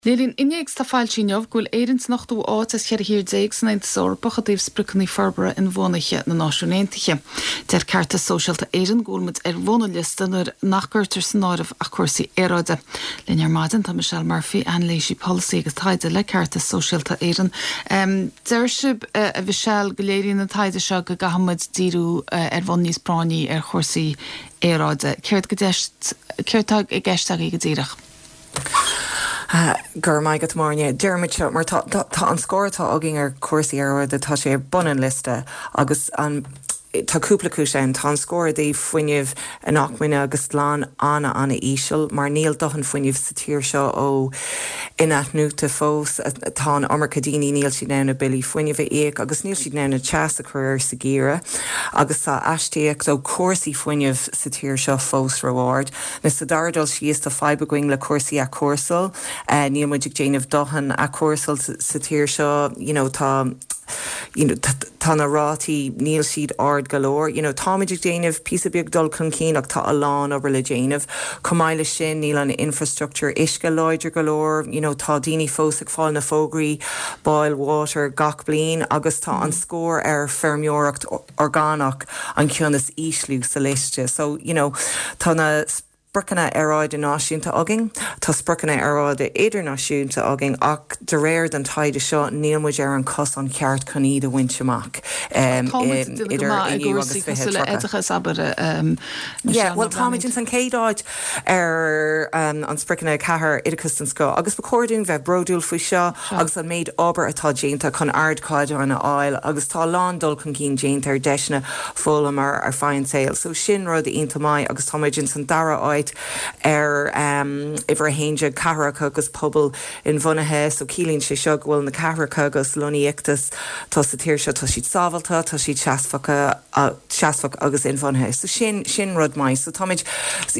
Léiríonn innéacs atá foilsithe inniu go bhfuil Éirinn san ochtú áit as 14 thír san Aontas Eorpach i dtaobh Spriocanna Forbartha Inbhuanaithe na Náisiún Aontaithe. Deir Ceartas Sóisialta Éireann go bhfuil muid ar bhun an liosta nuair nach gcuirtear san áireamh ach cúrsaí aeráide. Linn ar maidin tá Michelle Murphy, Anailísí Polasaí agus Taighde le Ceartas Sóisialta Éireann. Deir sibh, a Mhichelle, go léiríonn an taighde seo go gcaithfidh muid díriú ar bhonn níos práinní ar chúrsaí aeráide. Céard céard atá i gceist agaibh go díreach? Go raibh maith agat, Máire. Deirimid seo mar tá tá an scór atá againn ar chúrsaí aeráide, tá sé ar bun an liosta agus an tá cúpla cúis ann. Tá an scór i dtaobh fuinneamh inacmhainne agus glan an-an-íseal mar níl dóthain fuinnimh sa tír seo ó inathnuaite fós. Tá an iomarca daoine, níl siad in ann a billí fuinnimh a íoc agus níl siad in ann an teas a chur air sa gheimhreadh agus tá astaíocht ó chúrsaí fuinnimh sa tír seo fós ró-ard. Now sa dara dul síos tá fadhb againn le cúrsaí athchúrsáil. Níl muid ag déanamh dóthain athchúrsáil sa tír seo. You know tá you know tá na rátaí, níl siad ard go leor. You know táimid ag déanamh píosa beag dul chun cinn ach tá a lán obair le déanamh. Chomh maith leis sin níl an infrastructure uisce láidir go leor. You know tá daoine fós ag fáil na fógraí boil water gach bliain agus tá an scór ar feirmeoireacht orgánach an ceann is ísliú sa liosta. So, you know, tá na spriocanna aeráide náisiúnta againn, tá spriocanna aeráide idirnáisiúnta againn ach de réir den taighde seo níl muid ar an cosán ceart chun iad a bhaint amach Tá muid ag déanamh go maith i gcúrsaí cosúil le oideachas, abair, Yeah, bhuel táimid ins an chéad áit ar an spriocanna 4, oideachas den scoth, agus ba chóir dúinn bheith bródúil faoi seo agus an méid obair atá déanta chun ardchaighdeáin a fháil agus tá a lán dul chun cinn déanta ar deiseanna foghlama ar feadh an tsaoil. So sin rud iontach maith agus tá muid ins an dara áit ar uimhir 11, cathracha agus pobail inbhuanaithe. So ciallaíonn sé seo go bhfuil na cathracha agus lonnaíochtaí atá sa tír seo, tá siad sábháilte, tá siad seasmhacha, seasmhach agus inbhuanaithe. So sin, sin rud maith. So táimid,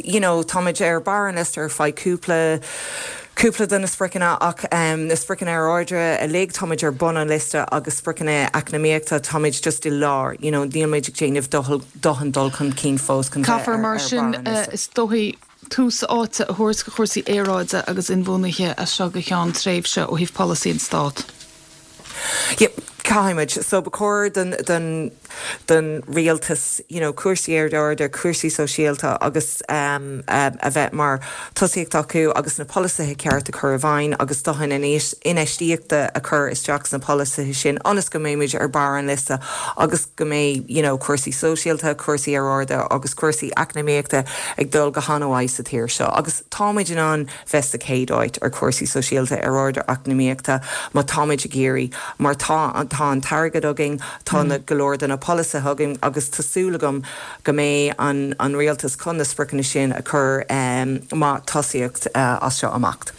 you know, táimid ar barr an liosta ar feadh cúpla, cúpla de na spriocanna ach na spriocanna aeráide uilig, táimid ar bun an liosta agus spriocanna eacnamaíochta, táimid just i lár, you know, níl muid ag déanamh dóthain dul chun cinn fós chun bheith ar, ar Caithfear mar barr sin, an liosta. is dóigh, tús áite a thabhairt do chúrsaí aeráide agus inbhuanaithe as seo go ceann tréimhse ó thaobh polasaí an Stát. Yeah, caithfimid. So ba chóir don, don, don rialtas, you know, cúrsaí aeráide, cúrsaí sóisialta agus um, a bheith mar tosaíocht acu agus na polasaithe ceart a chur i bhfeidhm agus dóthain infheistíochta a chur isteach sna polasaithe sin ionas go mbeimid ar barr an liosta agus go mbeidh, you know, cúrsaí sóisialta, cúrsaí aeráide agus cúrsaí eacnamaíochta ag dul go han-mhaith sa tír seo. Agus táimid in ann bheith sa chéad áit ar chúrsaí sóisialta, aeráide, eacnamaíochta má táimid ag iarraidh, mar tá tá an t-airgead againn, tá na go leor de na polasaithe againn agus tá súil agam go mbeidh an an rialtas chun na spriocanna sin a chur mar tosaíocht as seo amach.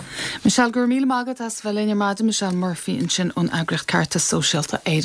Michelle, go raibh míle maith agat as bheith linn ar maidin. Michelle Murphy ansin ón eagraíocht Ceartas Sóisialta Éireann.